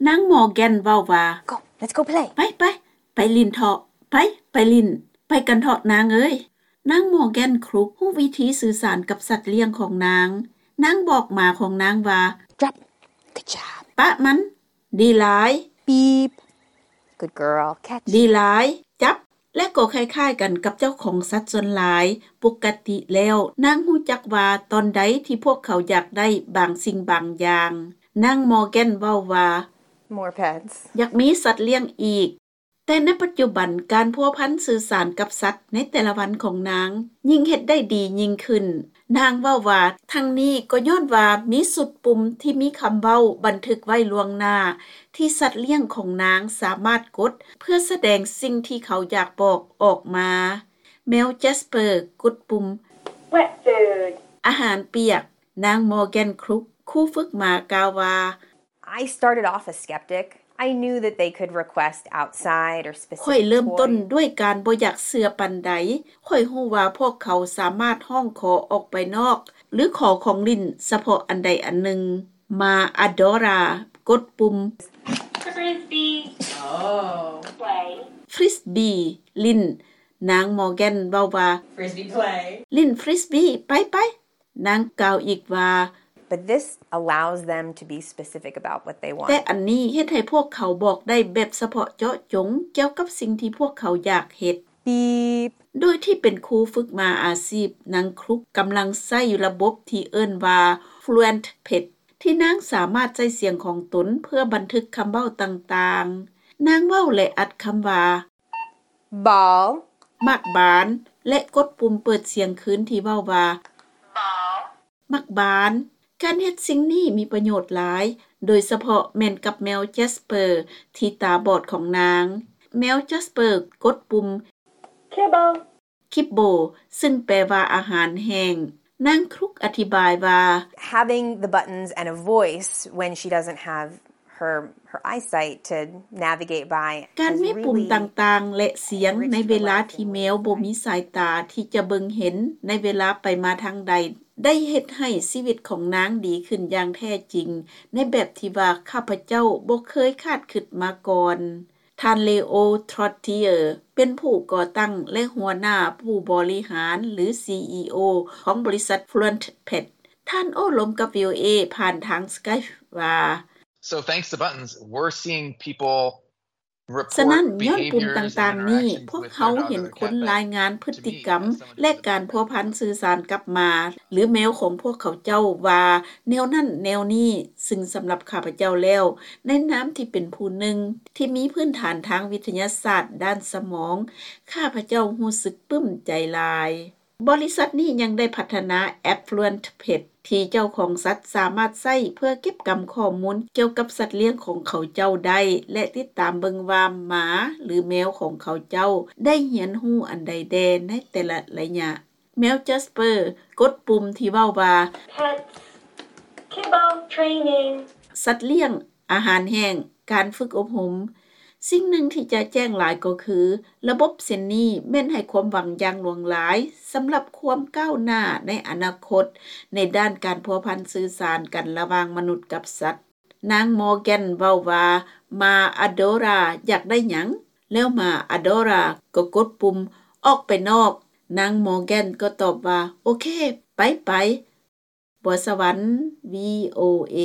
ນາງ Morgan ເວົ້າວ່າ Go, let's go play. ໄປ ໄປ ໄປຫຼິ້ນເຖາະ ໄປ ໄປຫຼິ້ນ ໄປກັນເຖາະນາງເອີຍ. ນາງ Morgan Crook ຮູ້ວິທີສື່ສານກັບສັດລ້ຽງຂອງນາງ. ນາງບອກໝາຂອງນາງວ່າ Drop. Good job. ປະມັນ. ດີຫຼາຍ. Beep. Good girl. Catch. ດີຫຼາຍ. ຈັບ. ແລະກໍຄ້າຍໆກັນກັບເຈົ້າຂອງສັດສ່ວນຫຼາຍ. ປົກກະຕິແລ້ວ ນາງຮູ້ຈັກວ່າຕອນໃດທີ່ພວກເຂົາຢາກໄດ້ບາງສິ່ງບາງຢ່າງ. ນາງ Morgan ເວົ້າວ່າ More pets. ຢາກມີສັດລ້ຽງອີກ. ແຕ່ໃນປັດຈຸບັນ ການພົວພັນສື່ສານກັບສັດໃນແຕ່ລະວັນຂອງນາງ ຍິ່ງເຮັດໄດ້ດີຍິ່ງຂຶ້ນ. ນາງເວົ້າວ່າ ທັງນີ້ກໍຍ້ອນວ່າມີຊຸດປຸ່ມທີ່ມີຄຳເວົ້າບັນທຶກໄວ້ລ່ວງໜ້າ ທີ່ສັດລ້ຽງຂອງນາງສາມາດກົດ ເພື່ອສະແດງສິ່ງທີ່ເຂົາຢາກບອກອອກມາ. ແມວ Jasper ກົດປຸ່ມ Wet food. ອາຫານປຽກ. ນາງ Morgan Crook ຄູຝຶກໝາກ່າວວ່າ I started off a skeptic. I knew that they could request outside or specific toy. ຂ້ອຍເລີ່ມຕົ້ນດ້ວຍການບໍ່ຢາກເຊື່ອປານໃດ. ຂ້ອຍຮູ້ວ່າພວກເຂົາສາມາດຮ້ອງຂໍອອກໄປນອກ ຫຼື ຂໍຂອງຫຼິ້ນສະເພາະອັນໃດອັນໜຶ່ງ. ໝາ Adora ກົດປຸ່ມ Frisbee. Oh. Play. Frisbee ຫຼິ້ນ. ນາງ Morgan ເວົ້າວ່າ Frisbee play. ຫຼິ້ນ Frisbee ໄປໆ. ນາງກ່າວອີກວ່າ But this allows them to be specific about what they want. ແຕ່ອັນນີ້ເຮັດໃຫ້ພວກເຂົາບອກໄດ້ແບບສະເພາະເຈາະຈົງກ່ຽວກັບສິ່ງທີ່ພວກເຂົາຢາກເຮັດ. Beep. ໂດຍທີ່ເປັນຄູຝຶກໝາອາຊີບ, ນາງ Crook ກຳລັງໃຊ້ລະບົບທີ່ເອີ້ນວ່າ Fluent Pet ທີ່ນາງສາມາດໃຊ້ສຽງຂອງຕົນເພື່ອບັນທຶກຄຳເວົ້າຕ່າງໆ. ນາງເວົ້າ ແລະ ອັດຄຳວ່າ Ball. ໝາກບານ ແລະ ກົດປຸ່ມເປີດສຽງຄືນທີ່ເວົ້າວ່າ Ball. ໝາກບານ. ການເຮັດສິ່ງນີ້ມີປະໂຫຍດຫຼາຍ, ໂດຍສະເພາະແມ່ນກັບແມວ Jasper ທີ່ຕາບອດຂອງນາງ. ແມວ Jasper ກົດປຸ່ມ Kibble. Kibble ຊຶ່ງແປວ່າອາຫານແຫ້ງ. ນາງ Crook ອະທິບາຍວ່າ Having the buttons and a voice when she doesn't have her, her eyesight to navigate by ການມີປຸ່ມຕ່າງໆ ແລະ ສຽງໃນເວລາທີ່ແມວບໍ່ມີສາຍຕາທີ່ຈະເບິ່ງເຫັນໃນເວລາໄປມາທາງໃດ ໄດ້ເຮັດໃຫ້ຊີວິດຂອງນາງດີຂຶ້ນຢ່າງແທ້ຈິງ ໃນແບບທີ່ວ່າຂ້າພະເຈົ້າບໍ່ເຄີຍຄາດຄິດມາກ່ອນ. ທ່ານ Leo Trottier ເປັນຜູ້ກໍ່ຕັ້ງ ແລະ ຫົວໜ້າຜູ້ບໍລິຫານ ຫຼື CEO ຂອງບໍລິສັດ Fluent Pet. ທ່ານໂອ້ລົມກັບ VOA ຜ່ານທາງ Skype ວ່າ So thanks to buttons, we're seeing people report behaviors and interactions with their dog or their cat back to me as someone who doesn't have a cat. ສະນັ້ນ ຍ້ອນປຸ່ມຕ່າງໆນີ້ ພວກເຮົາເຫັນຄົນລາຍງານພຶດຕິກຳ ແລະ ການພົວພັນສື່ສານກັບໝາ ຫຼື ແມວຂອງພວກເຂົາເຈົ້າວ່າແນວນັ້ນແນວນີ້, ຊຶ່ງສຳລັບຂ້າພະເຈົ້າແລ້ວ, ໃນນາມທີ່ເປັນຜູ້ໜຶ່ງທີ່ມີພື້ນຖານທາງວິທະຍາສາດດ້ານສະໝອງ, ຂ້າພະເຈົ້າຮູ້ສຶກປຶ້ມໃຈຫຼາຍ. ບໍລິສັດນີ້ຍັງໄດ້ພັດທະນາແອັບ Fluent Pet ທີ່ເຈົ້າຂອງສັດສາມາດໃຊ້ເພື່ອເກັບກຳຂໍ້ມູນກ່ຽວກັບສັດລ້ຽງຂອງເຂົາເຈົ້າໄດ້ ແລະ ຕິດຕາມເບິ່ງວ່າໝາ ຫຼື ແມວຂອງເຂົາເຈົ້າໄດ້ຮຽນຮູ້ອັນໃດແດ່ໃນແຕ່ລະໄລຍະ. ແມວ Jasper ກົດປຸ່ມທີ່ເວົ້າວ່າ Pets, kibble, training. ສັດລ້ຽງ, ອາຫານແຫ້ງ, ການຝຶກອົບຮົມ. ສິ່ງໜຶ່ງທີ່ຈະແຈ້ງຫຼາຍກໍຄື ລະບົບເຊັ່ນນີ້ແມ່ນໃຫ້ຄວາມຫວັງຢ່າງຫຼວງຫຼາຍສຳລັບຄວາມກ້າວໜ້າໃນອະນາຄົດ ໃນດ້ານການພົວພັນສື່ສານກັນລະຫວ່າງມະນຸດກັບສັດ. ນາງ Morgan ເວົ້າວ່າ ໝາ Adora ຢາກໄດ້ຫຍັງ? ແລ້ວໝາ Adora ກໍກົດປຸ່ມ ອອກໄປນອກ. ນາງ Morgan ກໍຕອບວ່າ ໂອເຄ ໄປໄປ. ບົວສະຫວັນ VOA.